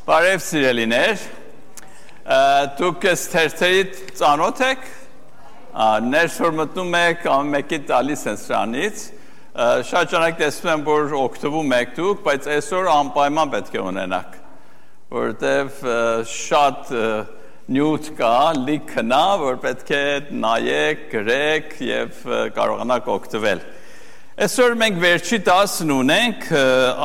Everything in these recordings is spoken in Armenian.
Բարև սիրելիներ, դուք թերթերի ծանոթ եք, ներս որ մտնում եք ամենքի տալիս են սրանից, շատ ճանակ տեսնում եմ, որ օգտվում եք դուք, բայց այսօր անպայման պետք է ունենաք, որտև շատ նյութ կա, լիքնա, որ պետք է նայեք, գրեք և կարողանաք օգտվել։ Այսօր մենք վերջի տասն ունենք,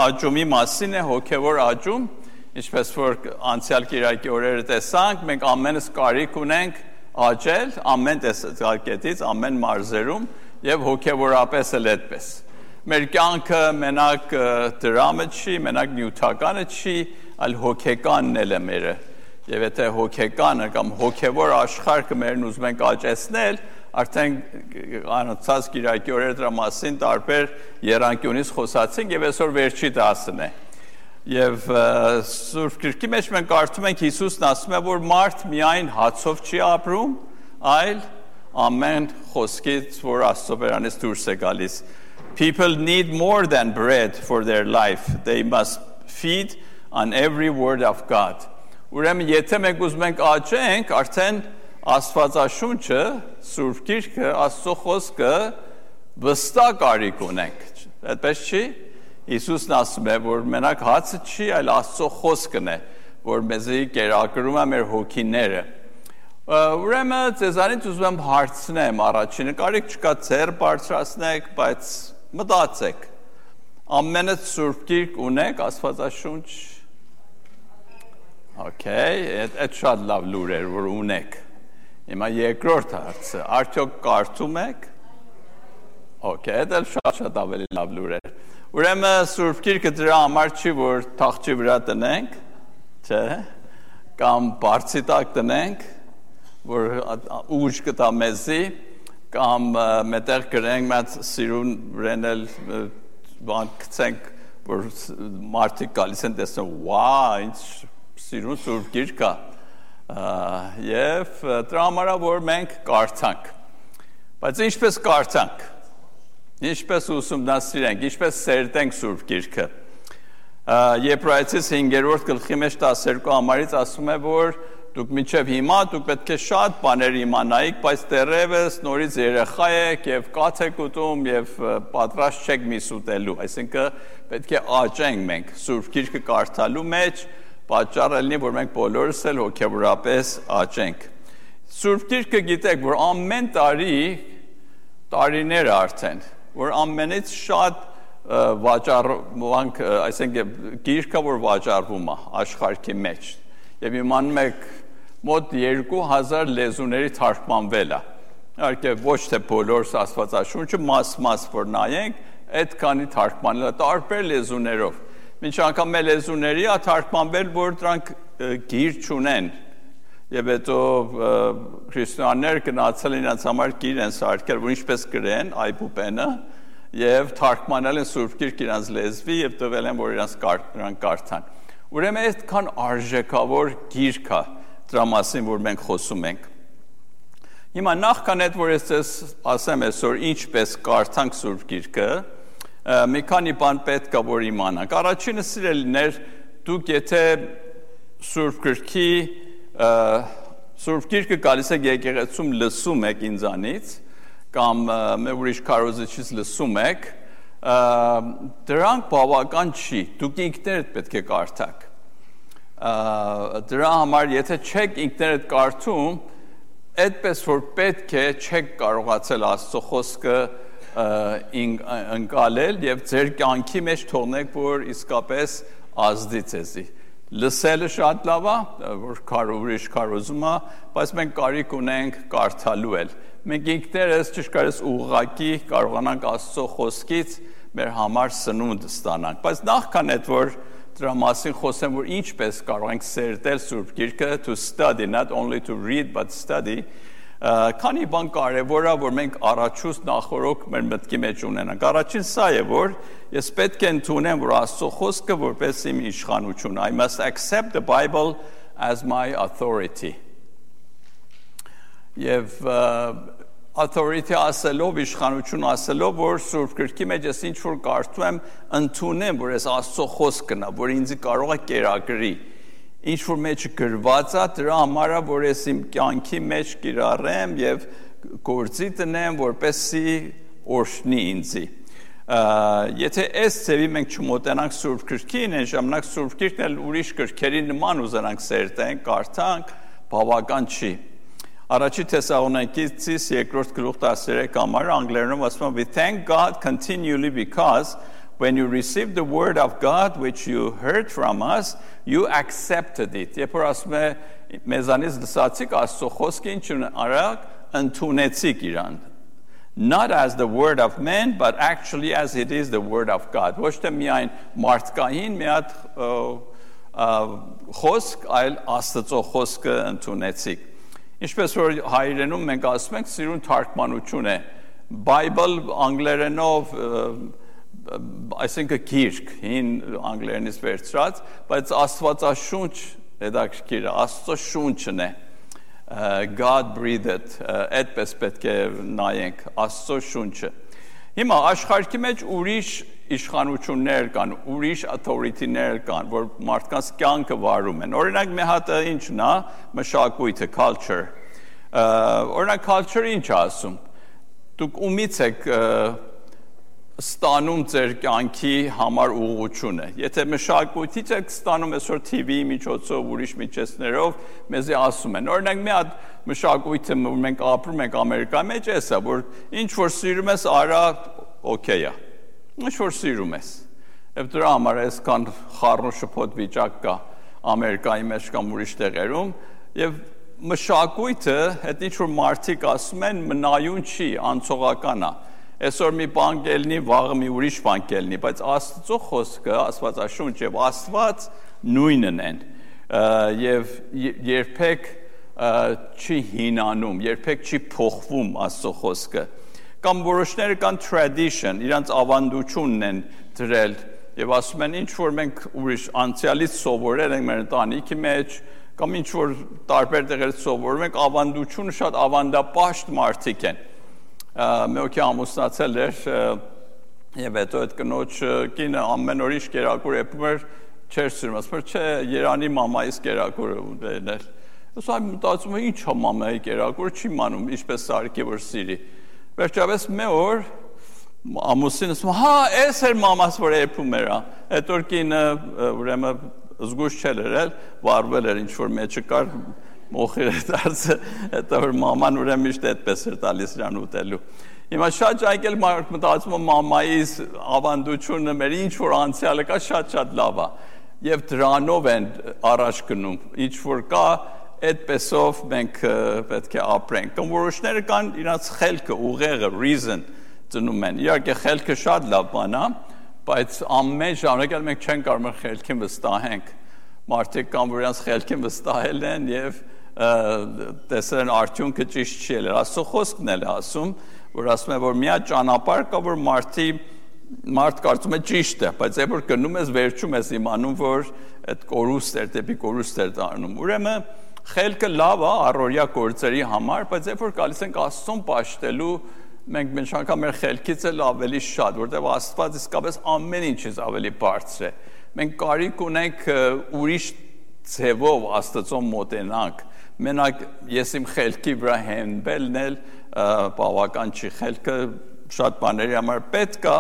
աճումի մասին է, հոգևոր աճում, Ինչպես որ անցյալ կիրակի օրերը տեսանք, մենք ամենս կարիք ունենք աճել, ամեն տեսակետից, ամեն մարզերում և հոգևորապես էլ այդպես։ Մեր կյանքը մենակ դրամը չի, մենակ նյութականը չի, այլ հոգեկանն էլ է մերը։ Եվ եթե հոգեկանը կամ հոգևոր աշխարհը մերն ուզում ենք աճեցնել, արդեն անցած կիրակի օրերը դրա մասին տարբեր եռանկյունից խոսացինք և այսօր վերջի դասն է։ Եվ Սուրբ Գրքի մեջ մենք կարդում ենք Հիսուսն ասում է, որ մարդ միայն հացով չի ապրում, այլ ամեն խոսքից, որ Աստծո բերանից դուրս է գալիս. People need more than bread for their life. They must feed on every word of God. Ուրեմն եթե մենք ուզում ենք աճենք, արդեն Աստվածաշունչը, Սուրբ Գիրքը, Աստծո խոսքը վստահ կարիք ունենք։ Այդպես չի։ Հիսուսն ասում է, որ մենակ հացը չի, այլ Աստծո խոսքն է, որ մեզի կերակրում է մեր հոգիները։ Ուրեմն ձեզանից ուզում եմ հարցնեմ առաջինը, կարիք չկա ձեռ բարձրացնեք, բայց մտածեք։ Ամենը Սուրբ Գիրք ունեք, Աստվածաշունչ։ Okay, այդ շատ լավ լուր էր, որ ունեք։ Հիմա երկրորդ հարցը, արդյոք կարդում եք։ Okay, դա շատ ավելի լավ լուր էր։ Ուրեմն Սուրբ Գիրքը դրա համար չի, որ թախչի վրա տնենք, չէ, կամ բարձի տակ տնենք, որ ուժ կտա մեզի, կամ մետեղ գրենք մեծ սիրուն վրան էլ բան գցենք, որ մարդիկ գալիս են տեսնում, վա, ինչ սիրուն Սուրբ Գիրք է, և դրա համար որ մենք կարդանք, բայց ինչպես կարդանք, Ինչպես ուսումնասիրենք, ինչպես սերտենք Սուրբ Գիրքը։ Եբրայեցիս 5-րդ գլխի մեջ 12 համարից ասում է, որ դուք մինչև հիմա դուք պետք է շատ բաներ իմանայիք, բայց դեռևս նորից երեխա եք և կաթ եք ուտում և պատրաստ չեք միս ուտելու, այսինքն պետք է աճենք մենք Սուրբ Գիրքը կարդալու մեջ, պատճառը լինի, որ մենք բոլորս էլ հոգևորապես աճենք։ Սուրբ Գիրքը գիտեք, որ ամեն տարիներ արդեն որ ամենից շատ վաճառվանք, այսինքն գիրքը, որ վաճառվում է աշխարհի մեջ, և իմանում եք մոտ 2000 լեզուների թարգմանվել է, իհարկե ոչ թե բոլոր Աստվածաշունչը մաս որ նայենք, այդքանի թարգմանել է տարբեր լեզուներով, մինչ անգամ մեր լեզուների է թարգմանվել, որ դրանք գիր չունեն, և հետո քրիստոնյաներ գնացել իրենց համար գիր են սարքել, որ ինչպես գրեն այբուբենը, և թարգմանել են Սուրբ Գիրք իրենց լեզվի և տվել են, որ իրենց կարդան։ Ուրեմն այդքան արժեքավոր գիրք է դրա մասին, որ մենք խոսում ենք։ Հիմա նախքան այդ, որ ես ասեմ այսօր ինչպես կարդանք Սուրբ Գիրքը, մի քանի բան պետք է որ իմանանք։ Առաջինը սիրելիներ, դուք եթե Սուրբ Գիրքը գալիս եք եկեղեցում լսում եք ինձանից, կամ ուրիշ քարոզիչից լսում եք, դրանք բավական չի, դուք ինքներդ պետք է կարդաք։ Դրա համար, եթե չեք ինքներդ կարդում, այդպես որ պետք է չեք կարողացել Աստծո խոսքը ընկալել և ձեր կյանքի մեջ թողնեք, որ իսկապես ազդի ձեզի։ Լսելը շատ լավ է, որ ուրիշ քարոզում է, բայց մենք կարիք ունենք կարդալու էլ։ Մենք ինքներս ճշգրիտ ուղղակի կարողանանք Աստծո խոսքից մեր համար սնունդ ստանանք։ Բայց նախքան այդ որ դրա մասին խոսեմ, որ ինչպես կարող ենք սերտել Սուրբ Գիրքը, to study, not only to read, but study, քանի բան կարևոր է, որ մենք առաջուց նախորոք մեր մտքի մեջ ունենանք։ Առաջին սա է, որ ես պետք է ընդունեմ, որ Աստծո խոսքը որպես իմ իշխանություն։ I must accept the Bible as my authority. Եվ authority ասելով, իշխանություն ասելով, որ Սուրբ Գրքի մեջ ես ինչ որ կարդում եմ, ընդունեմ, որ ես Աստծո խոսքն է, որ ինձ կարող է կերակրի։ ինչ որ մեջ գրված է, դրա համար է, որ ես իմ կյանքի մեջ կիրառեմ եւ գործի տնեմ, որպեսզի օրհնի ինձի։ Եթե այս ձևի մենք չմոտենանք Սուրբ Գրքին, այն ժամանակ Սուրբ Գրքն էլ ուրիշ գրքերի նման ուզենանք սերտենք, կարդանք, բավական չի։ Առաջի Թեսաղոնիկեցիս 2-րդ գլուխ 13 համարը անգլերենով ասում է We thank God continually because when you received the word of God which you heard from us, you accepted it։ Երբ որ ասում է մեզանից լսացիք Աստծո խոսքը ինչ արագ ընդունեցիք իրան։ Not as the word of men, but actually as it is the word of God. Ոչ թե միայն մարդկային մի հատ խոսք, այլ Աստծո խոսքը ընդունեցիք։ Ինչպես որ հայերենում մենք ասում ենք, սիրուն թարգմանություն է։ Bible անգլերենով այսինքն գիրք, հին անգլերենից վերցրած, բայց Աստվածաշունչ հետաքրքիր է, Աստծո շունչն է։ God breathed, այդպես պետք է նայենք Աստծո շունչը։ Հիմա աշխարհի մեջ ուրիշ իշխանություններ կան, ուրիշ authority-ներ կան, որ մարդկանց կյանքը վարում են։ Օրինակ մի հատ ինչն է, մշակույթը, culture։ Օրինակ culture-ը ինչ է ասում։ Դուք ումից եք ստանում ձեր կյանքի համար ուղղությունը։ Եթե մշակույթից եք ստանում այսօր TV-ի միջոցով, ուրիշ միջոցներով, մեզի ասում են։ Օրինակ մի հատ մշակույթը, որ մենք ապրում ենք Ամերիկայի մեջ, էսա, որ ինչ որ սիրում ես, արա օքեյ է։ Ինչ որ սիրում ես։ Եվ դրա համար այսքան խառն շփոթ վիճակ կա Ամերիկայի մեջ կամ ուրիշ տեղերում, եւ մշակույթը, այդ ինչ որ մարդիկ ասում են, մնայուն չի, անցողական է։ Այսօր մի բան կելնի, վաղը մի ուրիշ բան կելնի, բայց Աստծո խոսքը, Աստվածաշունչ եւ Աստված նույնն են։ Եվ երբեք չի հինանում, երբեք չի փոխվում Աստծո խոսքը։ Կամ որոշները կան tradition, իրանց ավանդությունն են դրել եւ ասում են ինչ որ մենք ուրիշ անցյալից սովորել ենք մեր ընտանիքի մեջ, կամ ինչ որ տարբեր տեղերից սովորում ենք, ավանդությունը շատ ավանդապաշտ մարդիկ են։ Մեկի ամուսնացել էր եւ հետո այդ կնոջ կինը ամեն օր ինչ կերակուր էպում էր, չէր սիրում, ասում էր, չէ, Երանի մամայից կերակուրը ուտել։ Ոսա մտածում եմ, ինչ է մամայի կերակուրը, չի մանում, ինչպես սարքի որ սիրի։ Վերջապես մի օր ամուսինը ասում, հա, էս էր մամաս որ էպում էր, այդ օր կինը ուրեմն զգուշ չէր եղել, վարվել էր ինչ որ մեջը կար մոխիր է դարձը, հետո որ մաման ուրեմն միշտ այդպես էր տալիս իրան ուտելու։ Հիմա շատ ջայկել մարդ մտածում է մամայից ավանդությունը մեր ինչ որ անցյալը կա շատ լավ է եւ դրանով են առաջ գնում ինչ որ կա այդպեսով մենք պետք է ապրենք կամ որոշները կան իրաց խելքը ուղեղը reason ծնում են իհարկե խելքը շատ լավ բան է բայց ամեն ժամանակ մենք չենք կարող խելքին վստահենք մարդիկ կան որ իրաց խելքին վստահել են եւ տեսել են արդյունքը ճիշտ չի ելել Աստծո խոսքն էլ ասում որ ասում է որ մի հատ ճանապարհ կա որ մարդ կարծում է ճիշտ է բայց երբ որ գնում ես վերջում ես իմանում որ այդ կորուստ էր դեպի կորուստ էր դառնում ուրեմն խելքը լավ է առօրյա գործերի համար բայց երբ որ գալիս ենք Աստծուն պաշտելու մենք միշտ անգամ մեր խելքից էլ ավելի շատ որտեղ Աստված իսկապես ամեն ինչից ավելի բարձր է մենք կարիք ունենք ուրիշ ձևով Աստծուն մոտենանք մենակ ես իմ խելքի վրա հենվելն էլ բավական չի խելքը շատ բաների համար պետք է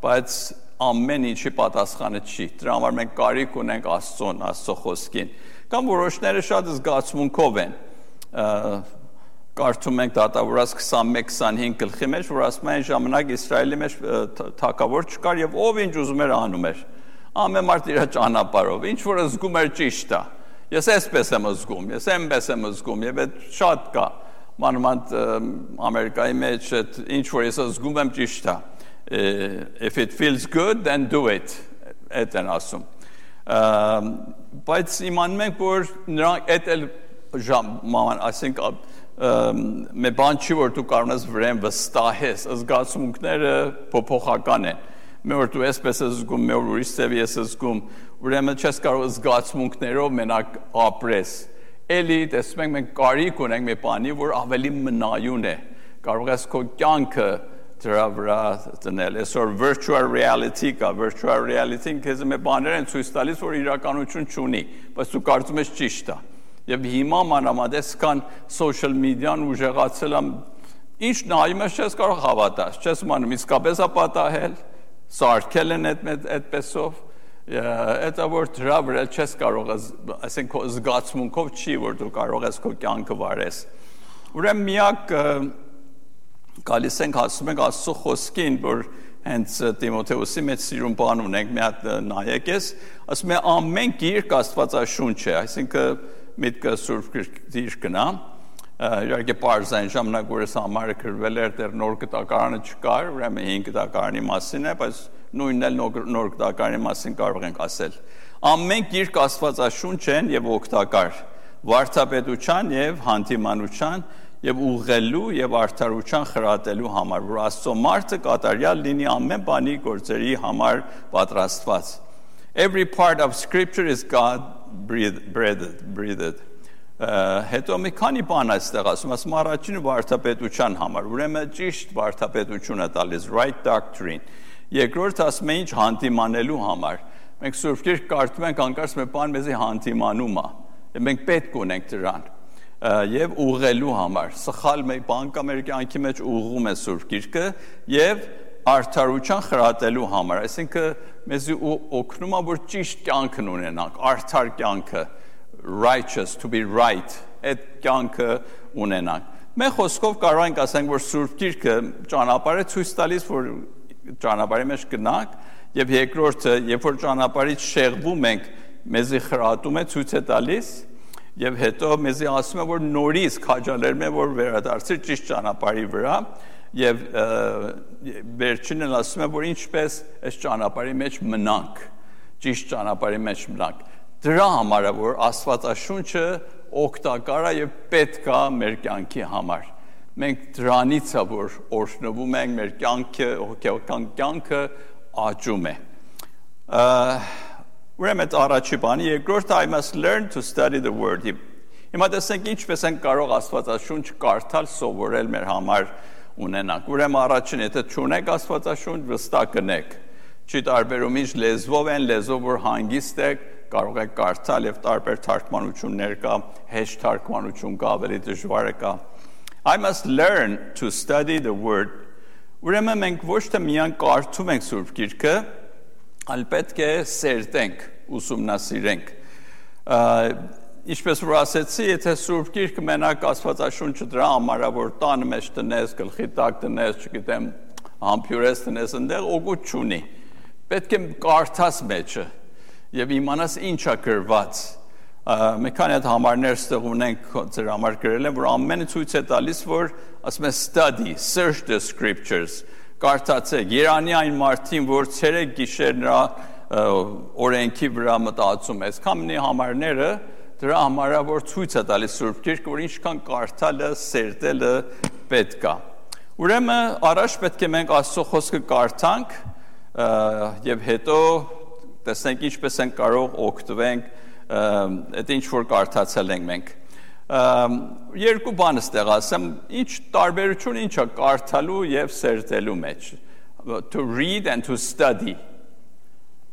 բայց ամեն ինչի պատասխանը չի դրա համար մենք կարիք ունենք Աստծուն Աստծո խոսքին կամ որոշները շատ զգացմունքով են կարդում ենք դատավորաց 21-25 գլխի մեջ որ ասում են ժամանակ Իսրայելի մեջ թագավոր չկար եւ ով ինչ ուզում էր անում էր ամեն մարդ իր ճանապարհով ինչ որ զգում էր ճիշտ է ես այսպես եմ զգում ես այնպես եմ զգում եւ այդ շատ կա մանավանդ Ամերիկայի մեջ ինչ որ ես զգում եմ ճիշտ է if it feels good then do it այդ են ասում բայց իմանում ենք որ նրանք այդ էլ ման ասենք մի բան չի որ դու կարող ես վրան վստահես զգացմունքները փոփոխական են մի օր դու այսպես ես զգում մի օր ուրիշ ձև ես զգում ուրեմն չես կարող զգացմունքներով մենակ ապրես էլի տեսնում ենք մենք կարիք ունենք մի բանի որ ավելի մնայուն է կարող ես քո կյանքը դրա վրա դնել։ Այսօր virtual reality կա, virtual reality-ն քեզ մի բաներ են ցույց տալիս, որ իրականություն չունի, բայց դու կարծում ես ճիշտ է։ Եվ հիմա մանրամասն կան social media-ն ուժեղացել եմ, ինչ նայում ես չես կարող հավատալ, չես իմանում իսկապես է պատահել, սարքել են այդպեսով, դա որ դրա վրա չես կարող, այսինքն քո զգացմունքով չի, որ դու կարող ես քո կյանքը վարես։ Ուրեմն միակ գալիս ենք ասում ենք Աստծո խոսքին, որ հենց Տիմոթեոսի մեջ սիրուն բան ունենք, մի հատ նայեք ես, ասում է ամեն գիրք Աստվածաշունչ է, այսինքն միտքը Սուրբ Գիրքն է, իհարկե պարզային ժամանակ որ այս համարը գրվել էր, դեռ նոր գտակարանը չկար, ուրեմն 5 գտակարանի մասին է, բայց նույնն էլ նոր գտակարանի մասին կարող ենք ասել։ Ամեն գիրք Աստվածաշունչ են եւ օգտակար, վարդապետության եւ հանդիմանության եւ ուղղելու եւ արդարության խրատելու համար, որ Աստծո մարդը կատարյալ լինի ամեն բանի գործերի համար պատրաստված։ Every part of scripture is God breathed. Հետո մի քանի բան այստեղ ասում առաջինը վարդապետության համար, ուրեմն ճիշտ վարդապետություն է տալիս, right doctrine։ Երկրորդ ասում է ինչ հանդիմանելու համար։ Մենք Սուրբ Գիրք կարդում ենք, անկարծ մի բան մեզի հանդիմանում է, եւ մենք պետք ունենք դրան։ Եվ ուղղելու համար, սխալ մի բան կա մեր կյանքի մեջ ուղղում է Սուրբ Գիրքը եւ արդարության խրատելու համար, այսինքն մեզի օգնում է որ ճիշտ կյանքն ունենանք, արդար կյանքը, righteous, to be right, այդ կյանքը ունենանք։ Մենք խոսքով կարող ենք ասենք որ Սուրբ Գիրքը ճանապարհ է ցույց տալիս, որ ճանապարհի մեջ գնանք, եւ երկրորդը, երբ որ ճանապարհից շեղվում ենք, մեզի խրատում է, ցույց է տալիս, եւ հետո մեզի ասում է որ նորից քաջալերում է որ վերադարձի ճիշտ ճանապարհի վրա եւ վերջինն ասում է որ ինչպես այս ճանապարհի մեջ մնանք, ճիշտ ճանապարհի մեջ մնանք։ Դրա համար է որ Աստվածաշունչը օգտակար է եւ պետք է մեր կյանքի համար։ Մենք դրանից է որ օրհնվում ենք, մեր կյանքը, հոգեական կյանքը աճում է։ Ուրեմն առաջի բանը, երկրորդը I must learn to study the word։ Հիմա տեսենք ինչպես ենք կարող Աստվածաշունչ կարդալ, սովորել մեր համար ունենանք։ Ուրեմն առաջին, եթե չունեք Աստվածաշունչ, վստահ կնեք։ Չի տարբերում ինչ լեզվով են, լեզվով որ հանգիստ եք, կարող եք կարդալ եւ տարբեր թարգմանություններ կա, հեշտ թարգմանություն կա, ավելի դժվարը կա։ I must learn to study the word։ Ուրեմն մենք ոչ թե միայն կարդում ենք Սուրբ Գիրքը, այլ պետք է սերտենք, ուսումնասիրենք։ Ինչպես որ ասեցի, եթե Սուրբ Գիրքը մենակ Աստվածաշունչը դրա համար է, որ տանը մեջ տնես, գլխի տակ տնես, չգիտեմ, համբյուրես տնես, այնտեղ օգուտ չունի։ Պետք է կարդաս մեջը եւ իմանաս ինչ է գրված։ Մի քանի հատ համարներ ստեղ ունենք ձեր համար գրել են, որ ամենը ցույց է տալիս, որ ասում է study, search the scriptures։ Կարդացեք, Երանի այն մարդին, որ ցերեկ գիշեր նրա օրենքի վրա մտածում է։ Այսքանի համարները դրա համար է որ ցույց է տալիս Սուրբ Գիրքը, որ ինչքան կարդալը, սերտելը պետք է։ Ուրեմն առաջ պետք է մենք Աստծո խոսքը կարդանք եւ հետո տեսնենք ինչպես ենք կարող օգտվենք այդ ինչ որ կարդացել ենք մենք։ Երկու բան ստեղ ասեմ, ինչ տարբերություն ինչ է կարդալու եւ սերտելու մեջ։ To read and to study.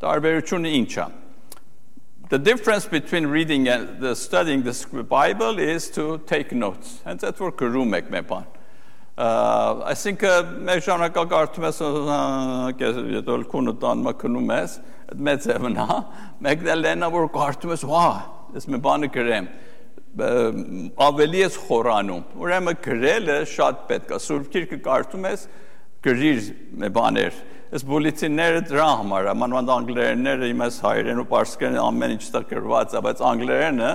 Տարբերությունը ինչ է։ The difference between reading and studying the Bible is to take notes. And that's what գրում եք մի բան։ Այսինքն մեր ժամանակա կարդում ես, եթե քունը տանմա քնում ես, այդ մեծ է մնա, մեկն էլ լենա որ կարդում ես, վա, ես մի բանը գրեմ, ավելի ես խորանում։ Ուրեմն գրելը շատ պետք է։ Սուրբ Գիրքը կարդում ես, գրիր մի բաներ։ Այս բուլետինները դրա համար է, մանավանդ անգլերենները, իմ այս հայերեն ու պարսկերեն ամեն ինչ ստեղ գրված է, բայց անգլերենը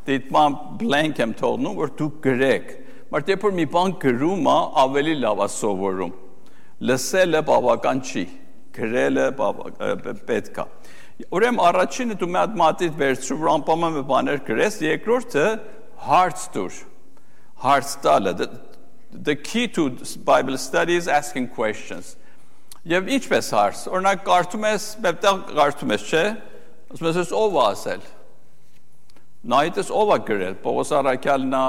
դիտման blank եմ թողնում, որ դուք գրեք։ Բայց երբ որ մի բան գրում է, ավելի լավ է սովորում։ Լսելը բավական չի, գրելը պետք է։ Ուրեմն առաջինը դու մի հատ մատիտ վերցրու, որ անպայման մի բաներ գրես, երկրորդը հարց տուր։ Հարց տալը։ The key to Bible study is asking questions. Եվ ինչպես հարց, օրինակ կարդում ես, մեկտեղ կարդում ես, չէ՞, ասում ես ով է ասել։ Նայից ով է գրել, Պողոս Առաքյալն է,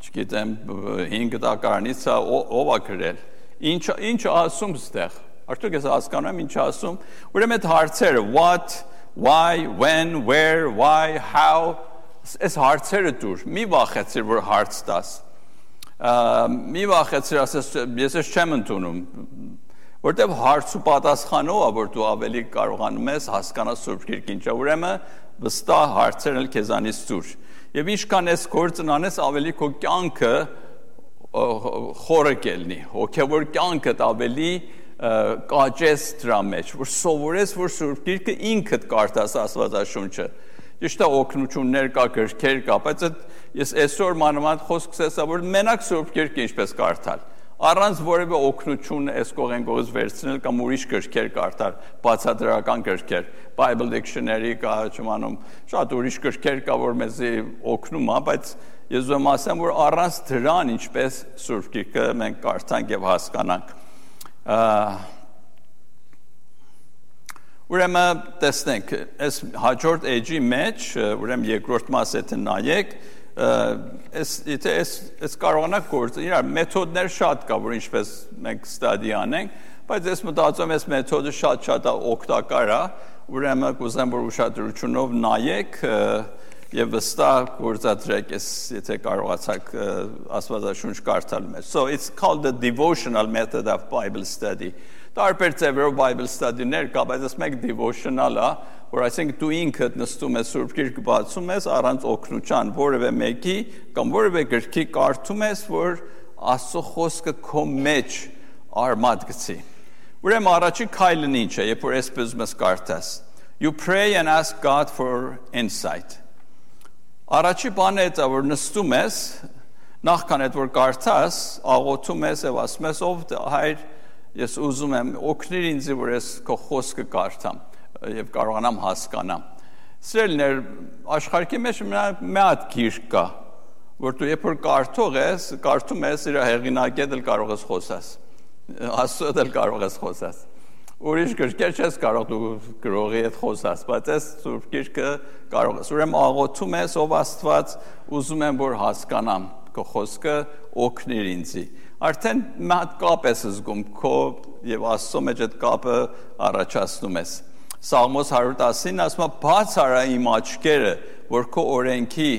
չգիտեմ, 5 դակարանից ով է գրել։ Ինչ ասում ստեղ։ Արդյոք ես հասկանում եմ ինչ ասում։ Ուրեմն այդ հարցերը what, why, when, where, why, how այս հարցերը դուր։ Մի վախեցիր, որ հարց տաս։ Մի վախեցիր, ասես ես չեմ ընդունում։ Որտեւ հարց ու պատասխանով է, որ դու ավելի կարողանում ես հասկանալ Սուրբ Գիրքը ինչա։ Ուրեմն վստահ հարցերն էլ քեզանից դուր։ Եվ ինչքան ես գործն անես, ավելի քո կյանքը խորը կելնի, հոգևոր կյանքդ ավելի կաճես դրա մեջ, որ սովորես, որ Սուրբ Գիրքը ինքդ կարդաս Աստվածաշունչը։ Ճիշտ է օգնություններ կա, գրքեր կա, բայց ես այսօր մանավանդ խոսքս էսա, որ մենակ Սուրբ Գիրքը ինչպես կարդալ, առանց որևէ օգնություն այս կողմից վերցնել կամ ուրիշ գրքեր կարդալ, բացատրական գրքեր, Bible Dictionary կա, չիմանում, շատ ուրիշ գրքեր կա, որ մեզի օգնում է, բայց ես ուզում ասեմ, որ առանց դրան ինչպես Սուրբ Գիրքը մենք կարդանք եւ հասկանանք։ Ուրեմն տեսնենք, այս հաջորդ էջի մեջ, ուրեմն երկրորդ մասը եթե նայեք, այս կարողանանք գործել, իրար մեթոդներ շատ կա, որ ինչպես մենք ստադի անենք, բայց ես մտածում եմ, այս մեթոդը շատ օգտակար է, ուրեմն կուզեմ, որ ուշադրությունով նայեք եւ վստահ գործադրեք, եթե կարողացաք Աստվածաշունչ կարդալ մեջ։ So it's called the devotional method of Bible study. Տարբեր ձևերով Bible study-ներ կա, բայց այս մեկ devotional է, որ այսինքն դու ինքդ նստում ես Սուրբ Գիրքը բացում ես առանց օգնության որևէ մեկի կամ որևէ գրքի կարդում ես, որ Աստծո խոսքը քո մեջ արմատ գցի։ Ուրեմն առաջի քայլն ինչ է, երբ որ այսպես ուզում ես կարդաս։ You pray and ask God for insight. Առաջի բանը է, որ նստում ես, նախքան այդ որ կարդաս, աղոթում ես եւ ասում ես, ով Հայր, ես ուզում եմ օգնիր ինձ, որ ես քո խոսքը կարդամ եւ կարողանամ հասկանամ։ Սիրելիներ, աշխարհի մեջ մի հատ գիրք կա, որ դու երբ որ կարդում ես, իր հեղինակի հետ կարող ես խոսաս։ Աստծո հետ կարող ես խոսաս։ Ուրիշ գրքեր չես կարող դու գրողի հետ խոսաս, բայց այս Սուրբ Գիրքը կարող ես։ Ուրեմն աղոթում ես, ով Աստված, ուզում եմ որ հասկանամ քո խոսքը, օգնիր ինձի։ Արդեն մի հատ կապ ես զգում քո եւ Աստծո մեջ այդ կապը առաջացնում ես։ Սաղմոս 119-ին ասում է. «Բաց արա իմ աչքերը, որ քո օրենքի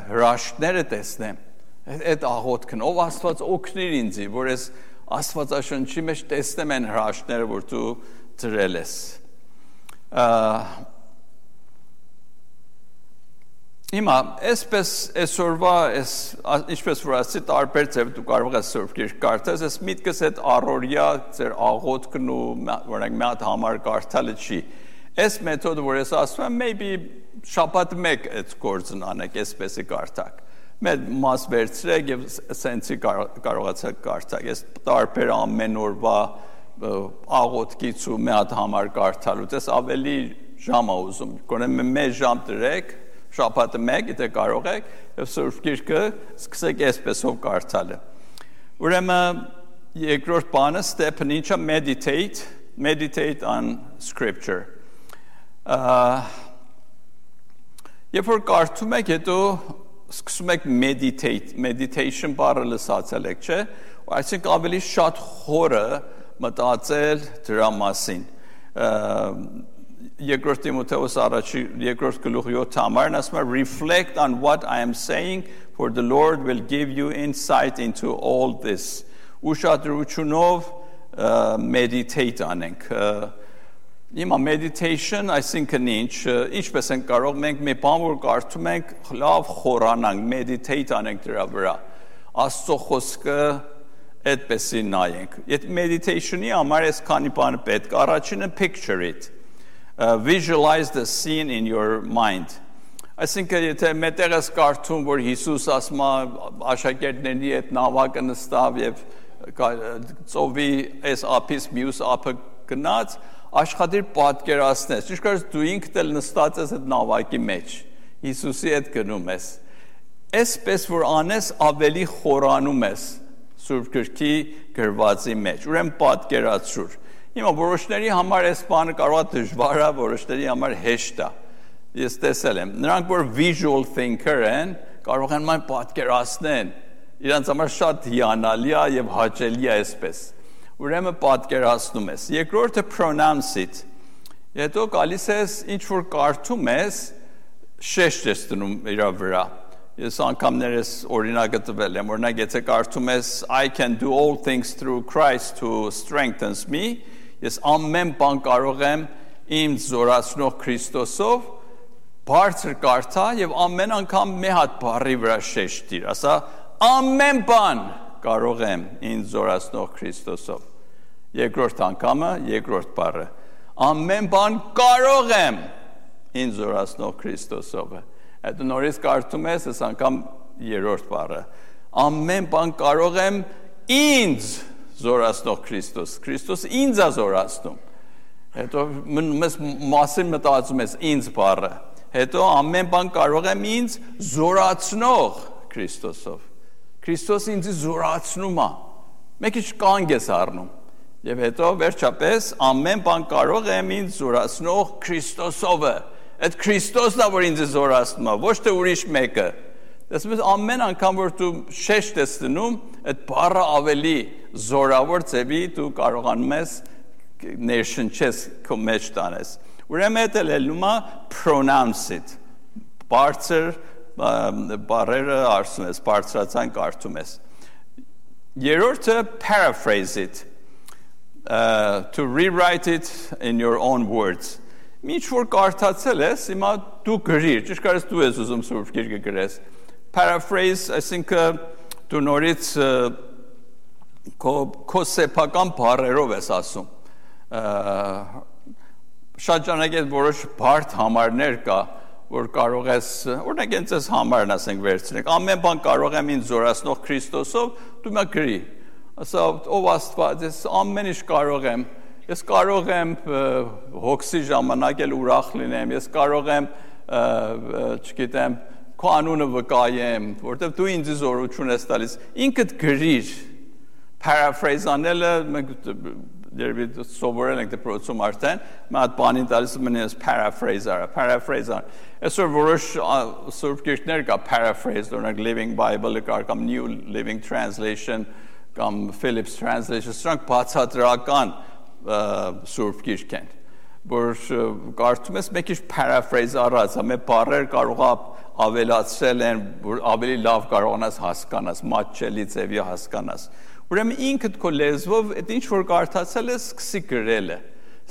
հրաշքները տեսնեմ»։ Այդ աղոթքն, ով Աստված օգնիր ինձի, որ ես Աստվածաշնչի մեջ տեսնեմ այն հրաշքները, որ դու դրել ես։ Հիմա, այսպես այսօրվա, ինչպես որ ասի, տարբեր ձև դու կարող ես Սուրբ Գիրք կարդաս, այս միտքս այդ առօրյա ձեր աղոթքն ու օրինակ մի հատ համար կարդալը չի։ Այս մեթոդը, որ ես ասում եմ, maybe շաբաթ մեկ այդ գործն անեք, այսպեսի կարդակ։ Մեր մաս վերցրեք եւ սենցի կարողացեք կարդալ։ Ես տարբեր ամեն օրվա աղոթքից ու մի հատ համար կարդալուց ես ավելի ժամ ուզում։ Գոնե մեկ ժամ դրեք, շաբաթը մեկ, եթե կարող եք, եւ Սուրբ Գիրքը սկսեք այսպեսով կարդալը։ Ուրեմն երկրորդ բանը step-ն ինչա meditate on scripture։ Երբ որ կարդում եք, հետո սկսում եք meditation բառը լսացել եք, չէ՞, այսինքն ավելի շատ խորը մտածել դրա մասին։ Երկրորդ Տիմոթեոս առաջի երկրորդ գլուխ 7 համարն ասում է reflect on what I am saying for the Lord will give you insight into all this։ Ուշադրությունով meditate անենք։ Հիմա meditation, այսինքն ինչպես ենք կարող մենք մի բան որ կարդում ենք, լավ խորանանք, meditate անենք դրա վրա։ Աստծո խոսքը այդպեսի նայենք։ Այդ meditation-ի համար այս քանի բան պետք։ Առաջինը picture it. Visualize the scene in your mind. Այսինքն եթե մետեղ ես կարդում, որ Հիսուս ասում է աշակերտների հետ նավակը նստավ եւ ծովի այս ափից մյուս ափը գնաց, աշխատիր պատկերացնես, ճիշտ դու ինքդ էլ նստած ես այդ նավակի մեջ, Հիսուսի հետ գնում ես, այսպես որ անես ավելի խորանում ես Սուրբ Գրքի գրվածի մեջ, ուրեմն պատկերացրու։ Հիմա որոշների համար այս բանը կարող է դժվար է, որոշների համար հեշտ է։ Ես տեսել եմ, նրանք որ visual thinker են, կարող են ման պատկերացնեն, իրանց համար շատ հիանալի է եւ հաճելի է այսպես։ Ուրեմն պատկերացնում ես։ Երկրորդը pronounce it։ Հետո գալիս ես ինչ որ կարդում ես, շեշտ ես դնում իր վրա։ Ես անգամներս օրինակ տվել եմ, օրինակ եթե կարդում ես I can do all things through Christ who strengthens me, ես ամեն բան կարող եմ ինձ զորացնող Քրիստոսով, բարձր կարդա եւ ամեն անգամ մի հատ բառի վրա շեշտ դիր, ասա ամեն բան կարող եմ ինձ զորացնող Քրիստոսով։ Երկրորդ անգամը, երկրորդ բառը, ամեն բան կարող եմ ինձ զորացնող Քրիստոսով։ Այդ նորից կարդում ես, այս անգամ երրորդ բառը, ամեն բան կարող եմ ինձ զորացնող Քրիստոս, Քրիստոս ինձ է զորացնում։ Հետո մեզ մասին մտածում ես ինձ բառը, հետո ամեն բան կարող եմ ինձ զորացնող Քրիստոսով։ Քրիստոս ինձ զորացնում է, մեկ ինչ կանգ ես առնում։ Եվ հետո վերջապես ամեն բան կարող եմ ինձ զորացնող Քրիստոսով։ Այդ Քրիստոսն է, որ ինձ զորացնում է, ոչ թե ուրիշ մեկը։ Դες ամեն անգամ որ դու շեշտ ես դնում, այդ բառը ավելի զորավոր ձևի դու կարողանում ես ներշնչես քո մեջ տանես։ Ուրեմն դա լելում է pronounce it։ Բարձր բառերը արսում ես, բարձրացան կարդում ես։ Երրորդը paraphrase it, to rewrite it in your own words. Ինչ որ կարդացել ես, հիմա դու գրիր, ճիշտ կարես դու ես ուզում Սուրբ Գիրքը գրես։ Paraphrase, այսինքն դու նորից քո սեփական բառերով ես ասում։ Շատ ժամանակ այդ որոշ բարդ համարներ կա, որ կարող ես, օրինակ ինձ այս համարն ասենք վերցնենք, ամեն բան կարող եմ ինձ զորացնող Քրիստոսով, դու մա գրի։ Ասա, ով Աստված, ես ամեն ինչ կարող եմ, ես կարող եմ հոգսի ժամանակ էլ ուրախ լինեմ, ես կարող եմ, չգիտեմ, քո անունը վկայեմ, որտեղ դու ինձ զորություն ես տալիս, ինքդ գրիր, paraphrase անելը, մենք սովորել ենք դպրոցում արդեն, մի հատ բանին տալիս մնես paraphrase արա, այսօր որոշ Սուրբ Գիրքներ կա paraphrase, օրինակ Living Bible-ը կար, կամ New Living Translation, կամ Phillips Translation, սրանք բացատրական Սուրբ Գիրք են, որ կարդում ես մեկ ինչ paraphrase առած, ամեն բառեր կարող ավելացրել են, որ ավելի լավ կարողանաս հասկանաս, մատչելի ձևի հասկանաս։ Ուրեմն ինքդ քո լեզվով այդ ինչ որ կարդացել ես, սկսի գրելը։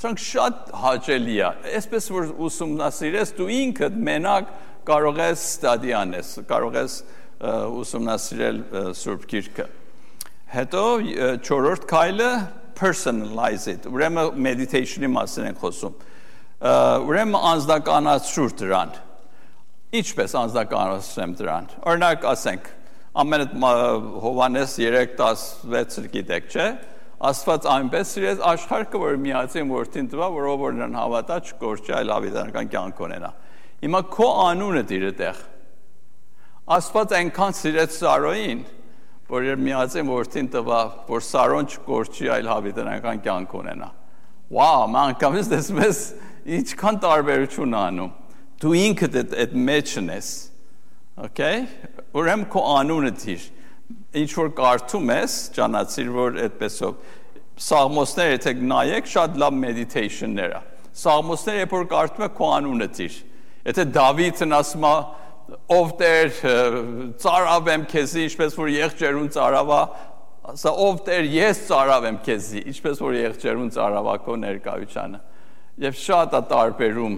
Սրանք շատ հաճելի է, այսպես որ ուսումնասիրես, դու ինքդ մենակ կարող ես ստադի անես, կարող ես ուսումնասիրել Սուրբ Գիրքը։ Հետո չորրորդ քայլը personalize it, ուրեմն meditation-ի մասին ենք խոսում, ուրեմն անձնականացրու դրան, ինչպես անձնականացրեմ դրան, օրինակ ասենք, ամեն Հովհաննես 3:16 գիտեք, չէ, Աստված այնպես սիրեց աշխարհը, որ միածին որդին տվա, որով որ նրան հավատա չկորչի, այլ հավիտենական կյանք ունենա։ Հիմա քո անունը դիր այդտեղ, Աստված այնքան սիրեց Սարոյին, որ իր միածին որդին տվա, որ Սարոն չկորչի, այլ հավիտենական կյանք ունենա։ Վաու, ման անգամից տեսնում ես ինչքան տարբերություն անում։ Դու ինքդ այդ մեջն ես։ Okay? Ուրեմն քո անունը դիր։ Ինչ որ կարդում ես, ճանաչիր, որ այդպեսով Սաղմոսները եթե նայեք, շատ լավ մեդիտեյշններ է։ Սաղմոսները երբ որ կարդում ես, քո անունը դիր։ Եթե Դավիթն ասում է ով Տեր ծարավ եմ քեզի, ինչպես որ եղջերուն ծարավա, ասա ով Տեր ես ծարավ եմ քեզի, ինչպես որ եղջերուն ծարավա քո ներկայությանը։ Եվ շատ է տարբերում։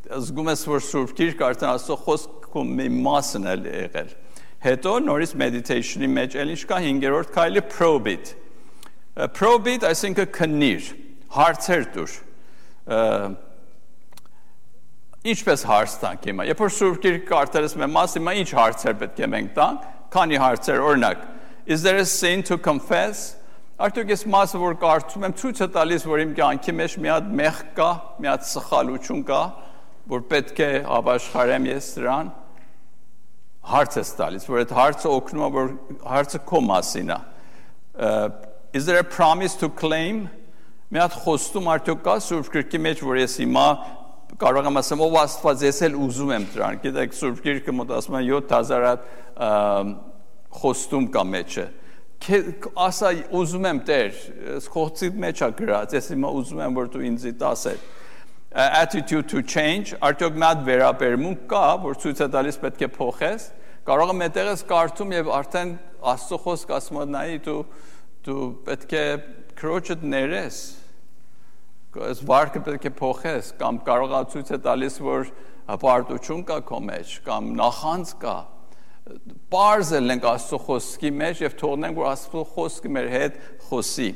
Զգում ես որ Սուրբ Գիրքը արդեն Աստծո խոսքը մի մասն է եղել։ Հետո նորից մեդիտեյշնի մեջ էլ ինչ կա 5-րդ քայլը probe it։ Probe it, այսինքն քննիր, հարցեր տուր։ Ինչպես հարց տանք հիմա։ Երբ որ Սուրբ Գիրքը կարդալիս մեր մասը, հիմա ինչ հարցեր պետք է մենք տանք, քանի հարցեր, օրինակ, is there a sin to confess? Արդյոք ես մասը որ կարդում եմ, ցույց է տալիս, որ իմ կյանքի մեջ մի հատ մեղք կա, մի հատ սխալություն կա, որ պետք է ապաշխարեմ ես դրան։ Հարց ես տալիս, որ այդ հարցը օգնում է, որ հարցը քո մասին է։ Is there a promise to claim? Մի հատ խոստում արդյոք կա Սուրբ Գիրքի մեջ, որ ես հիմա կարող եմ ասեմ, ով Աստված, ես էլ ուզում եմ դրան։ Գիտեք, Սուրբ Գիրքը մոտ ասում է 7000 խոստում կա մեջը ասա ուզում եմ Տեր խոսքի մեջ է գրած ես հիմա ուզում եմ որ դու ինձ տասես attitude to change արդյոք մատ վերաբերմունք կա որ ցույց է տալիս պետք է փոխես կարող եմ այդտեղ ես կարդում եւ արդեն Աստծո խոսք ասում է նայի դու պետք է քրոջդ ներես այս վարկը պետք է փոխես կամ կարող է ցույց է տալիս որ հպարտություն կա քո մեջ կամ նախանձ կա Պարզել ենք Աստծո խոսքի մեջ եւ թողնենք որ Աստծո խոսքը մեր հետ խոսի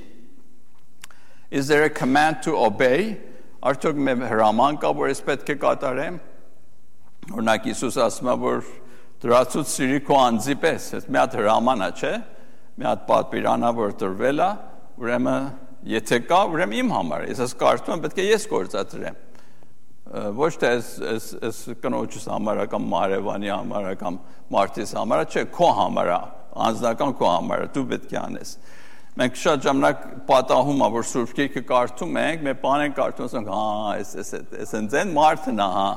Is there a command to obey Արդյոք մեր հրաման կա որ ես պետք է կատարեմ Օրինակ Հիսուս ասում է որ դրացուց սիրի քո անձի պես այս մի հատ հրաման է չէ մի հատ պատվիրանա որ տրվել է ուրեմն եթե կա ուրեմն իմ համար ես ես կարծում եմ պետք է ես գործադրեմ ոչ թե այս կնոջս համար կամ Մարևանի համար կամ Մարտիս համար չէ քո համար անձնական քո համար դու պետք է անես մենք շատ ժամանակ պատահում է որ Սուրբ Գիրքը կարդում ենք մեր բան ենք կարդում ասենք հա այս ընձեն Մարտն է հա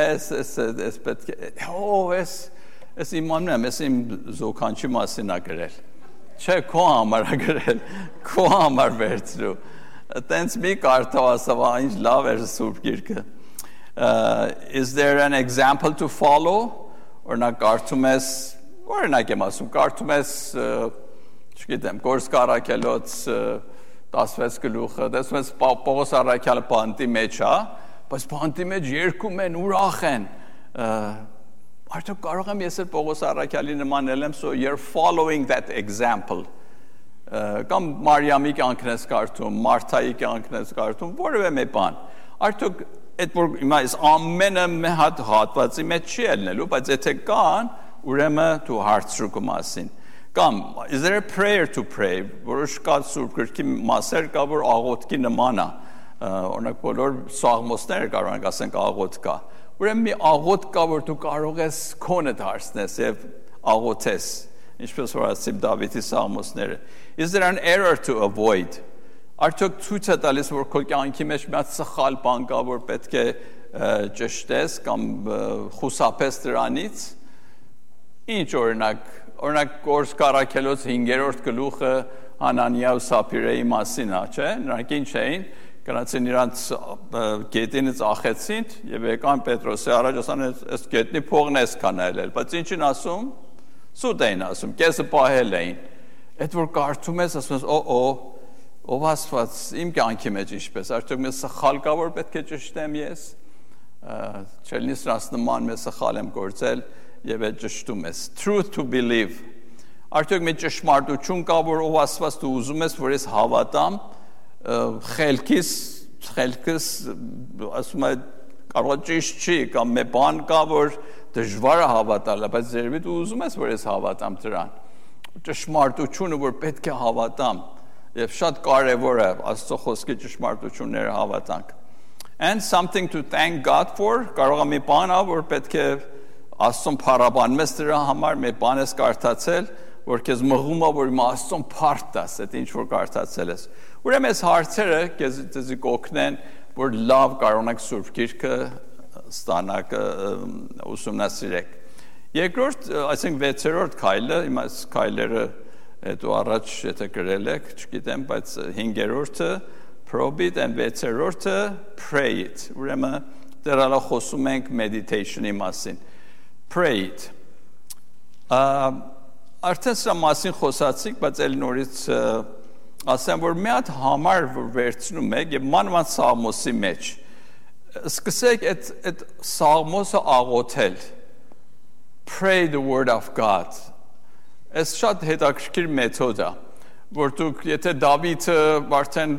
այս պետք է այս իմանում եմ այս իմ զոքանչի մասին է գրել չէ քո համար է գրել քո համար վերցրու Տենց մի կարդով ասավ ինչ լավ էր Սուրբ Գիրքը Is there an example to follow օրինակ կարդում ես օրինակ եմ ասում կարդում ես չգիտեմ Գորսկ Առաքելոց 16 գլուխը տեսնում ես Պողոս Առաքյալը բանտի մեջ է բայց բանտի մեջ երգում են ուրախ են արդյոք կարող եմ ես էլ Պողոս Առաքյալի նմանել եմ so you're following that example կամ Մարիամի կյանքն ես կարդում Մարթայի կյանքն ես կարդում որևէ մի բան արդյոք այդ որ հիմա այս ամենը մի հատ հատվածի մեջ չի ելնելու բայց եթե կան ուրեմն դու հարցրու կո մասին կամ is there a prayer to pray որոշ կա Սուրբ Գրքի մասեր կա որ աղոթքի նման է օրինակ բոլոր սաղմոսները կարող ենք ասենք աղոթ կա ուրեմն մի աղոթ կա որ դու կարող ես քոնդ հարցնես եւ աղոթես ինչպես որ ասիմ Դավիթի սաղմոսները is there an error to avoid Արդյոք ցույց է տալիս որ քո կյանքի մեջ մի հատ սխալ բան կա որ պետք է ճշտես կամ խուսափես դրանից Ինչ օրինակ Գորսկ Առաքելոց 5-րդ գլուխը Հանանիա ու Սափիրեի մասին է, չէ՞։ Նրանք ինչ էին, գնացին իրանց գետինից ախեցին եւ եկան Պետրոսի առաջ ասան այս գետնի փողն էս կանայել, բայց ինչին ասում։ Սուտ էին ասում, կեսը պահել էին։ Այդ որ կարդում ես, ասում ես, ով Աստված իմ կյանքի մեջ ինչպես, արդյոք մի սխալ կա որ պետք է ճշտեմ ես։ Չելնի սրանց նման մի սխալ եմ գործել եւ այդ ճշտում ես։ Truth to believe։ Արդյոք մի ճշմարտություն կա որ ով Աստված դու ուզում ես որ ես հավատամ, խելքս ասում է կարող ճիշտ չի կամ մի բան կա որ դժվար է հավատալը, բայց երևի դու ուզում ես որ ես հավատամ դրան։ Ճշմարտությունը որ պետք է հավատամ եւ շատ կարեւոր է Աստծո խոսքի ճշմարտությունները հավատանք։ And something to thank God for, կարող է մի բան ա որ պետք է Աստծուն փառաբանես դրա համար, մի բան ես կարդացել, որ քեզ մղում է որ իմ Աստծուն փառք տաս, այդ ինչ որ կարդացել ես։ Ուրեմն այս հարցերը քեզ կօգնեն, որ լավ կարողանաք Սուրբ Գիրքը ստանաք ուսումնասիրեք։ Երկրորդ, այսինքն 6-րդ քայլը, հիմա այս քայլերը հետո առաջ եթե գրել եք, չգիտեմ, բայց 5-րդը probe it and 6-րդը pray it։ Ուրեմն դեռ խոսում ենք meditation-ի մասին։ Pray it։ Արդեն սա մասին խոսացիք, բայց էլ նորից ասեմ, որ մի հատ համար որ վերցնում եք եւ մանավանդ Սաղմոսի մեջ սկսեք այդ Սաղմոսը աղոթել Pray the word of God Այս շատ հետաքրքիր մեթոդ է որ դուք եթե Դավիթը արդեն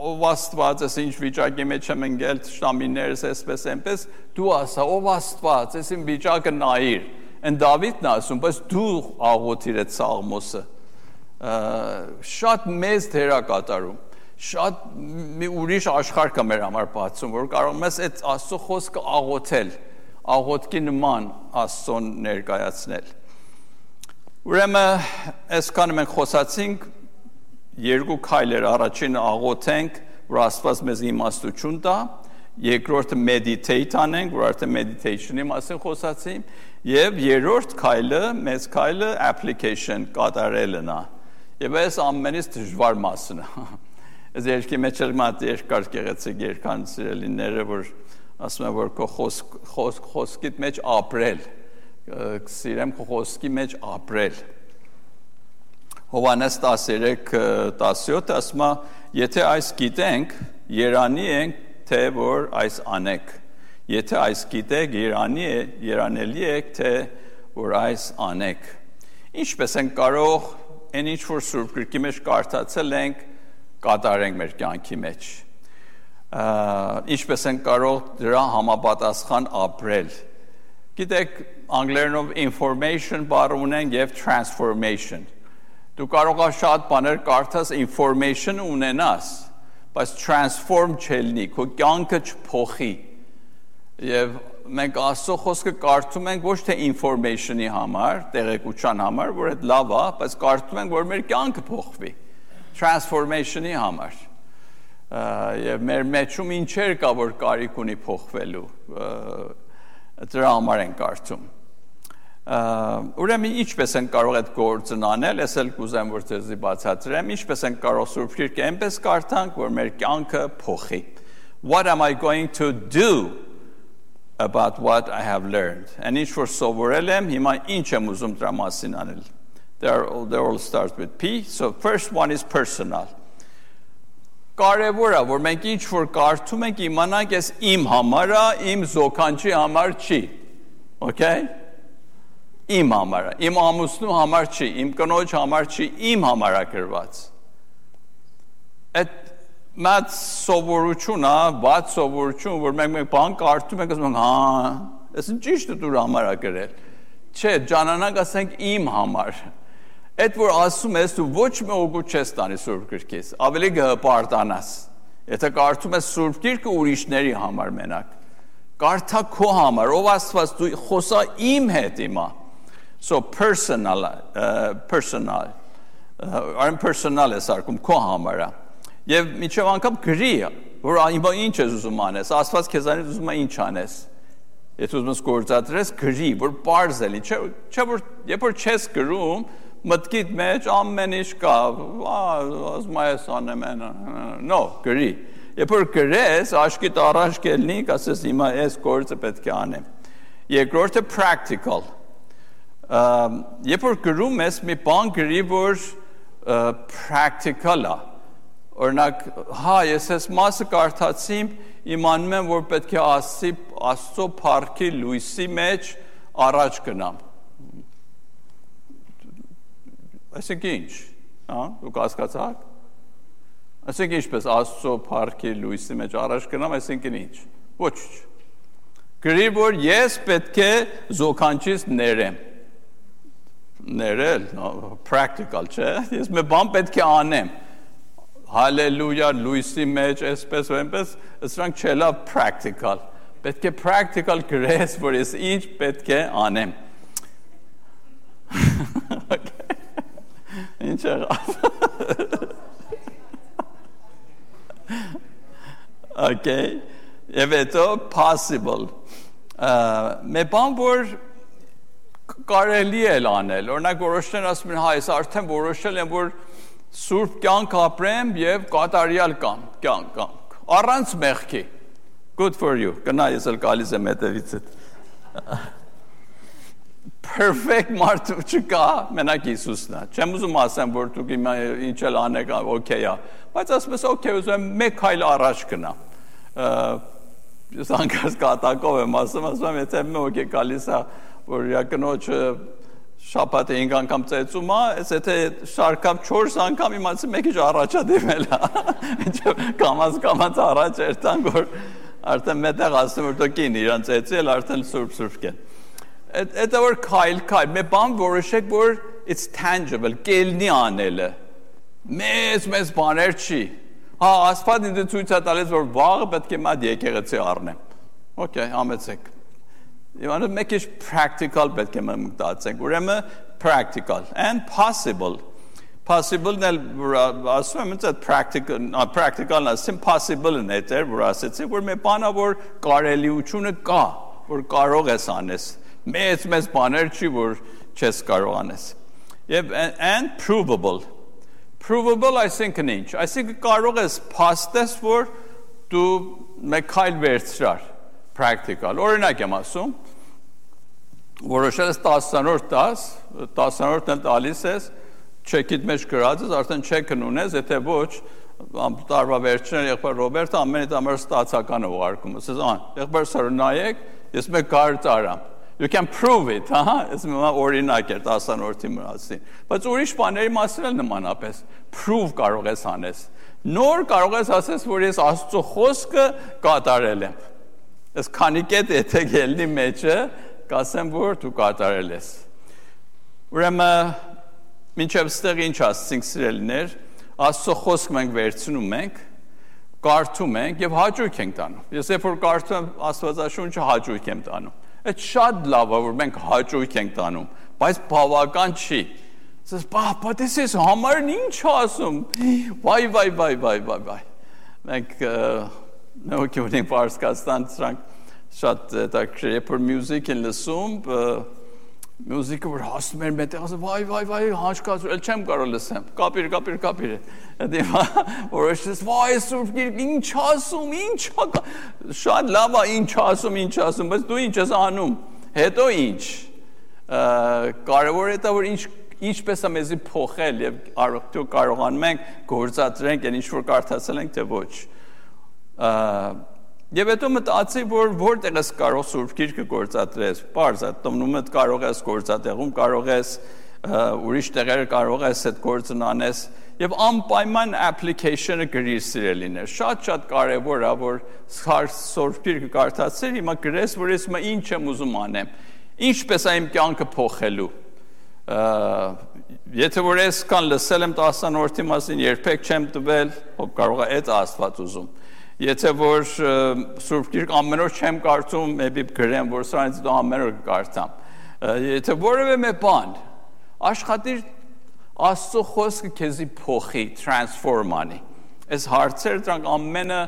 ով Աստված ես ինչ վիճակի մեջ եմ ընկել շտամիներս այսպես այնպես դու ասա ով Աստված ես իմ վիճակը նայիր Են Դավիթն ասում բայց դու աղոթիր այդ Սաղմոսը շատ մեծ դեր է կատարում շատ մի ուրիշ աշխարհ կա մեր համար բացում որ կարող ես այդ Աստծո խոսքը աղոթել աղոթքի նման Աստծուն ներկայացնել Ուրեմն այսքանը մենք խոսացինք երկու քայլեր առաջինը աղոթենք որ Աստված մեզ իմաստություն տա երկրորդը meditate անենք, որ արդեն meditation-ի մասին խոսացինք, եւ երրորդ քայլը, մեծ քայլը application կատարելն է։ Եվ այս ամենից դժվար մասն է։ Այս երկի մեջ էլ մատ երկար գեղեցիկ երկան սիրելիները, որ ասում են, որ քո խոսքիդ մեջ ապրել, սիրեմ քո խոսքի մեջ ապրել։ Հովհաննես 13:17 ասում է, եթե այս գիտենք, երանի ենք, թե որ այս անեք։ Եթե այս գիտեք, երանելի եք, թե որ այս անեք։ Ինչպես են կարող այն ինչ որ Սուրբ Գրքի մեջ կարդացել ենք, կատարենք մեր կյանքի մեջ։ Ինչպես են կարող դրա համապատասխան ապրել։ Գիտեք, անգլերենով information բառ ունեն եւ transformation։ Դու կարող ես շատ բաներ կարդաս, information ունենաս, բայց transform չելնի, քո կյանքը չփոխի։ Եվ մենք Աստծո խոսքը կարդում ենք ոչ թե information-ի համար, տեղեկության համար, որ այդ լավ է, բայց կարդում ենք, որ մեր կյանքը փոխվի, transformation-ի համար։ Եվ մեր մեջում ինչեր կա, որ կարիք ունի փոխվելու, դրա համար ենք կարդում։ Ուրեմն ինչպես են կարող այդ գործն անել, ես էլ կուզեմ որ ձեզի բացատրեմ, ինչպես են կարող Սուրբ Գիրքը այնպես կարդանք, որ մեր կյանքը փոխի։ What am I going to do about what I have learned? And ինչ որ սովորել եմ, հիմա ինչ եմ ուզում դրա մասին անել։ They all start with P. So first one is personal. Կարևոր է, որ մենք ինչ որ կարդում ենք, իմանանք ես իմ համար է, իմ զոքանչի համար չի։ Okay? Իմ համար է, իմ ամուսնու համար չի, իմ կնոջ համար չի, իմ համար է գրված։ Այդ մատ սովորություն է, բաց սովորություն, որ մենք բան կարդում ենք, ասում ենք, հա, այս ճիշտ է դու համար է գրել։ Չէ, ջանանանք ասենք իմ համար։ Այդ որ ասում ես, դու ոչ մի օգուտ չես տանի Սուրբ Գրքից, ավելի կհպարտանաս։ Եթե կարդում ես Սուրբ Գիրքը ուրիշների համար մենակ, կարդա քո համար, ով Աստված դու խոսա իմ հետ հիմա։ So personal է սարկում քո համար է։ Եւ միջև անգամ գրի, որ հիմա ինչ ես ուզում անես, Աստված քեզանից ուզում է ինչ անես։ Եթե ուզում ես գործադրես, գրի, որ པարզ էլի, չէ որ երբ որ չես գրում, մտքիդ մեջ ամեն ինչ կա, ասում ես անեմ, no, գրի։ Երբ որ գրես, աշկիդ առաջ կելնի, ասես հիմա այս գործը պետք է անեմ։ Երկրորդը practical։ Երբ որ գրում ես, մի բան գրի, որ practical է։ Օրինակ, հա, ես այս մասը կարդացիմ, իմանում եմ, որ պետք է Աստծո փառքի լույսի մեջ առաջ գնամ։ Այսինքն ինչ, հա, դուք հասկացաք։ Այսինքն ինչպես Աստծո փառքի լույսի մեջ առաջ գնամ, այսինքն ինչ։ Ոչ։ Գրի, որ ես պետք է զոքանչից ներեմ։ Ներել, practical, չէ։ Ես մի բան պետք է անեմ։ Հալելույա, լույսի մեջ, այսպես ու այնպես, սրանք չելա practical։ Պետք է practical գրես, որ ես ինչ պետք է անեմ։ Ինչ եղավ։ Okay, եւ հետո possible։ Մի բան որ կարելի է անել, օրինակ որոշներ ասում են, հա, ես արդեն որոշել եմ, որ սուրբ կյանք ապրեմ եւ կատարյալ կյանք, առանց մեղքի։ Good for you։ Գնա ես էլ գալիս եմ հետևիցդ։ Perfect մարդ չկա, մենակ Հիսուսն է։ Չեմ ուզում ասեմ, որ դուք հիմա ինչ էլ անեք, օքեյ է, բայց ասում ես, օքեյ, ուզում եմ մեկ քայլ առաջ գնամ։ Ես անկած կատակով եմ ասում, եթե մեկ է գալիս է, որ կնոջը շաբաթը 5 անգամ ծեծում է, եթե շարքամ 4 անգամ իմացի մեկ ինչ առաջա դիմել է։ Կամած առաջ երտանք, որ արդեն մետեղ ասում, որ դու կին իրան ծեծել, արդեն սուրբ կեն։ Դա որ քայլ, մի բան որոշեք, որ it's tangible, կելնի անելը։ Մեծ բաներ չի։ Հա, Աստված ինձ ցույց է տալիս, որ վաղը պետք է մատ եկեղեցի առնեմ։ Okay, համեցեք։ Եվ մեկ ինչ practical պետք է մտածենք, ուրեմն practical and possible։ possible-ն էլ ասում եմ այդ practical-ն ասեմ possible-ն է դեր որ ասեցի որ մի բանա որ կարելիությունը կա որ կարող ես անես մեծ բաներ չի որ չես կարող անես եւ and provable այսինքն ինչ այսինքն կարող ես փաստես որ դու մեկ քայլ վերցրար practical օրինակ եմ ասում որոշել ես 10-րդն էլ տալիս ես չեկիդ մեջ գրած ես արդեն չեկն ունես եթե ոչ տարվա վերջին եղբայր Ռոբերտը ամենից համար ստացականը ուղարկում ասես եղբայր սարը նայեք ես մեկ կար տարամ you can prove it ես մի օրինակ էր 10-րդի մասին բայց ուրիշ բաների մասին էլ նմանապես prove կարող ես անես նոր կարող ես ասես որ ես Աստծո խոսքը կատարել եմ ես քանի կետ եթե գելնի մեջը կասեմ որ դու կատարել ես ուրեմն մինչև ստեղ ինչ ասցինք սիրելիներ Աստծո խոսք մենք վերցնում ենք կարդում ենք եւ հաճույք ենք տանում ես երբ որ կարդում եմ Աստվածաշունչը հաճույք եմ տանում այդ շատ լավ է որ մենք հաճույք ենք տանում բայց բավական չի ասես but this is համարն ինչ ասում վայ մենք նոյքունին պարսկաստան սրանք շատ դակրի երբ որ մյուզիկ են լսում մյուզիկը որ հասնում էր մետեղ ասում վայ հաշկացու էլ չեմ կարող լսեմ կապիր դե որոշես վայ Սուրբ Գիրք ինչ ասում շատ լավ է ինչ ասում բայց դու ինչ ես անում հետո ինչ կարևոր է դա որ ինչպես է մեզի փոխել եւ արդյոք կարողանում ենք գործադրենք այն ինչ որ կարդացել ենք թե ոչ Եվ հետո մտածի, որ որտեղ ես կարող Սուրբ Գիրքը գործադրես, պարզ է, տոմնումդ կարող ես գործատեղում, կարող ես ուրիշ տեղերը կարող ես այդ գործն անես եւ անպայման application-ը գրիր սիրելիներ։ Շատ կարեւոր է, որ Սուրբ Գիրքը կարդացիր, հիմա գրես, որ ես հիմա ինչ եմ ուզում անեմ։ Ինչպես է իմ կյանքը փոխելու։ Եթե որ ես կան լսել եմ 10-րդի մասին, երբեք չեմ տվել, կարող է այդ Աստված ուզում։ Եթե որ Սուրբ Գիրք ամեն օր չեմ կարդում, maybe գրեմ, որ սրանից դու ամեն օր կարդամ։ Եթե որևէ մի բան աշխատիր Աստծո խոսքը քեզի փոխի, transform անի։ Այս հարցերը դրանք ամենը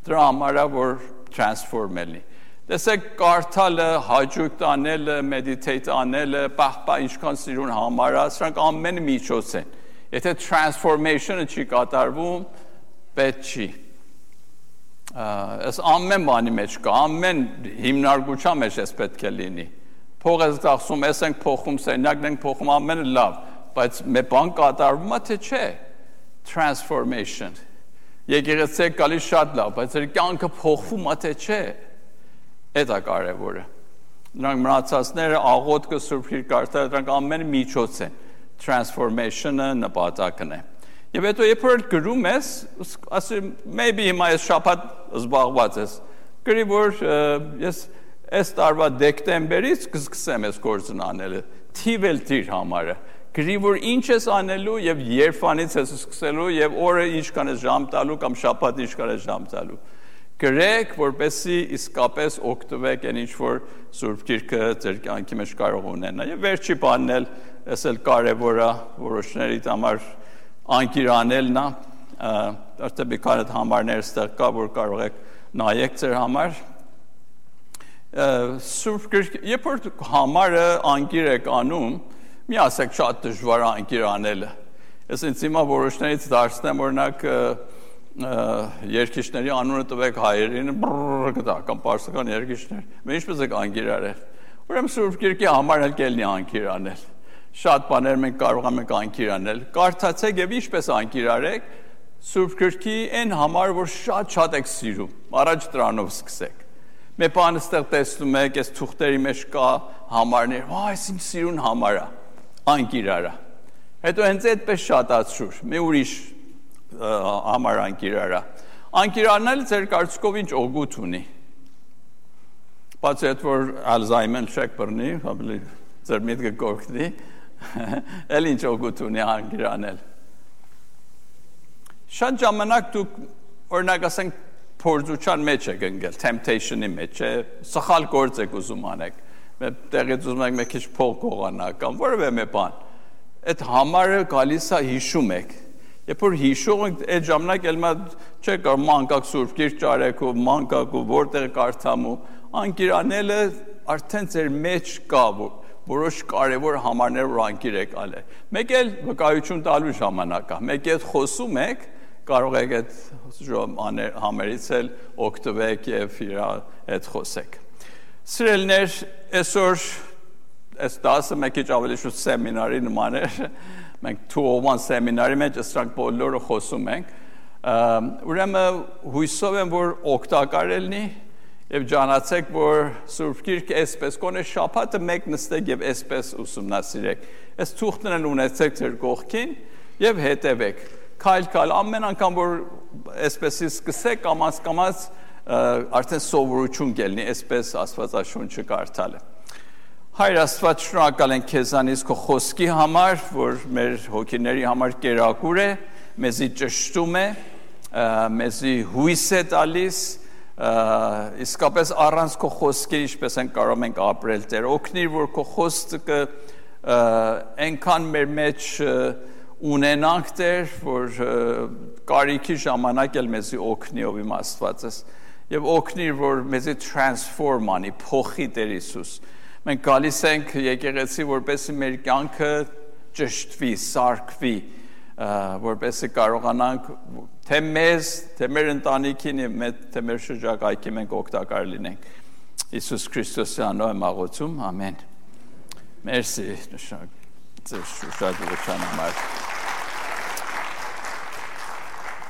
դրա համար է որ transform ելի։ Տեսեք կարդալը, հաճույք տանելը, meditate անելը, պահպա ինչքան սիրուն համար է, սրանք ամենը միջոց են։ Եթե transformation-ը չի կատարվում, պետք չի։ Այս ամեն բանի մեջ կա, ամեն հիմնարկության մեջ էս պետք է լինի։ Փող ես ծախսում, ես ենք փոխում, սենյակն ենք փոխում, ամենը լավ, բայց մի բան կատարվում է թե չէ։ Transformation։ Եկեղեցի գալիս շատ լավ, բայց իր կյանքը փոխվում է թե չէ։ Դա կարևորը։ Նրանք մնացածները աղոթքը Սուրբ Գիրք կարդալը դրանք ամենը միջոց են։ Transformation-ը նպատակն է։ Եվ հետո երբ որ գրում ես, ասում maybe հիմա ես շաբաթ զբաղված ես։ Գրի որ ես այս տարվա դեկտեմբերից կսկսեմ այս գործն անելը։ Թիվել դիր համարը։ Գրի որ ինչ ես անելու եւ երբանից ես սկսելու եւ օրը ինչքան ես ժամ տալու կամ շաբաթ ինչքան ես ժամ տալու։ Գրեք, որպեսզի իսկապես օգտվեք այն ինչ որ Սուրբ Գիրքը ձեր կյանքի մեջ կարող ունենա։ Եվ վերջի բանն էլ, այս էլ կարևոր է որոշների համար անկիրանելն է, արդեն մի քանի համարներ ստեղ կա, որ կարող եք նայեք ձեր համար։ Սուրբ Գիրքը, երբ որ համարը անկիր եք անում, մի ասեք շատ դժվար է անկիր անելը։ Ես ինձ հիմա որոշներից դարձնեմ, օրինակ երկիշների անունը տվեք հայերին, կտա, կամ պարսկական երկիշներ, մենք ինչպես եք անկիր արել։ Ուրեմն Սուրբ Գիրքի համարն էլ կելնի անկիր անել։ Շատ բաներ մենք կարող ենք անկիր անել։ Կարդացեք եւ ինչպես անկիր արեք Սուրբ Գիրքի այն համար, որ շատ եք սիրում։ Առաջ դրանով սկսեք։ Մի բան ստեղ տեսնում եք, այս թուղթերի մեջ կա համարներ, այս ինչ սիրուն համար է։ Անկիր արա։ Հետո հենց այդպես շատացրուր։ Մի ուրիշ համար անկիր արա։ Անկիր անելը ձեր կարծիքով ինչ օգուտ ունի։ Բացի այդ որ Ալզայմեր չեք բռնի, ավելի ձեր միտքը կօգնի, էլ ինչ օգուտ ունի անկիր անել։ Շատ ժամանակ դուք օրինակ ասենք փորձության մեջ եք ընկել, temptation-ի մեջ, սխալ գործ եք ուզում անեք։ Տեղից ուզում եք մի քիչ փող գողանալ կամ որևէ մի բան։ այդ համարը գալիս է հիշում եք։ Երբ որ հիշում եք, այդ ժամանակ էլ չէ կար մանկակ Սուրբ Գիրք ճարեք ու մանկակ ու որտեղ կարդամ ու անկիրանելը արդեն ձեր մեջ կա որոշ կարևոր համարներ որ անկիր եք ալե։ Մեկ էլ վկայություն տալու ժամանակ է։ Մեկ էլ խոսում եք, կարող եք այդ համերից էլ օգտվեք եւ իր հետ խոսեք։ Սիրելիներ, այսօր այս դասը մեկ քիչ ավելի շուտ սեմինարի նման է։ Մենք 201 սեմինարի մեջ սրանք բոլորը խոսում ենք։ Ուրեմն հույսով եմ որ օգտակար լինի եւ ջանացեք որ Սուրբ Գիրքը այսպես կոնե շաբաթը մեկ նստեք եւ այսպես ուսումնասիրեք։ Այս թուղթներն ունեցեք ձեր կողքին եւ հետևեք։ Քայլ ամեն անգամ որ այսպեսի սկսեք կամաց արդեն սովորություն կլինի այսպես Աստվածաշունչը կարդալը։ Հայր Աստված, շնորհակալ ենք քեզանից քո խոսքի համար, որ մեր հոգիների համար կերակուր է, մեզի ճշտում է, մեզի հույս է տալիս, իսկապես առանց քո խոսքի ինչպես են կարող ենք ապրել Տեր, օգնիր որ քո խոսքը այնքան մեր մեջ ունենանք Տեր, որ կարիքի ժամանակ էլ մեզի օգնի ով իմ Աստվածս, եւ օգնիր որ մեզի transform անի, փոխի Տեր Հիսուս։ Մենք գալիս ենք եկեղեցի որպեսզի մեր կյանքը ճշտվի, սարքվի, որպեսզի կարողանանք թե մեզ, թե մեր ընտանիքին, թե մեր շրջակայքի մենք օգտակար լինենք։ Հիսուս Քրիստոսի անունով եմ աղոթում, ամեն։ Մերսի, շնորհակալ եմ։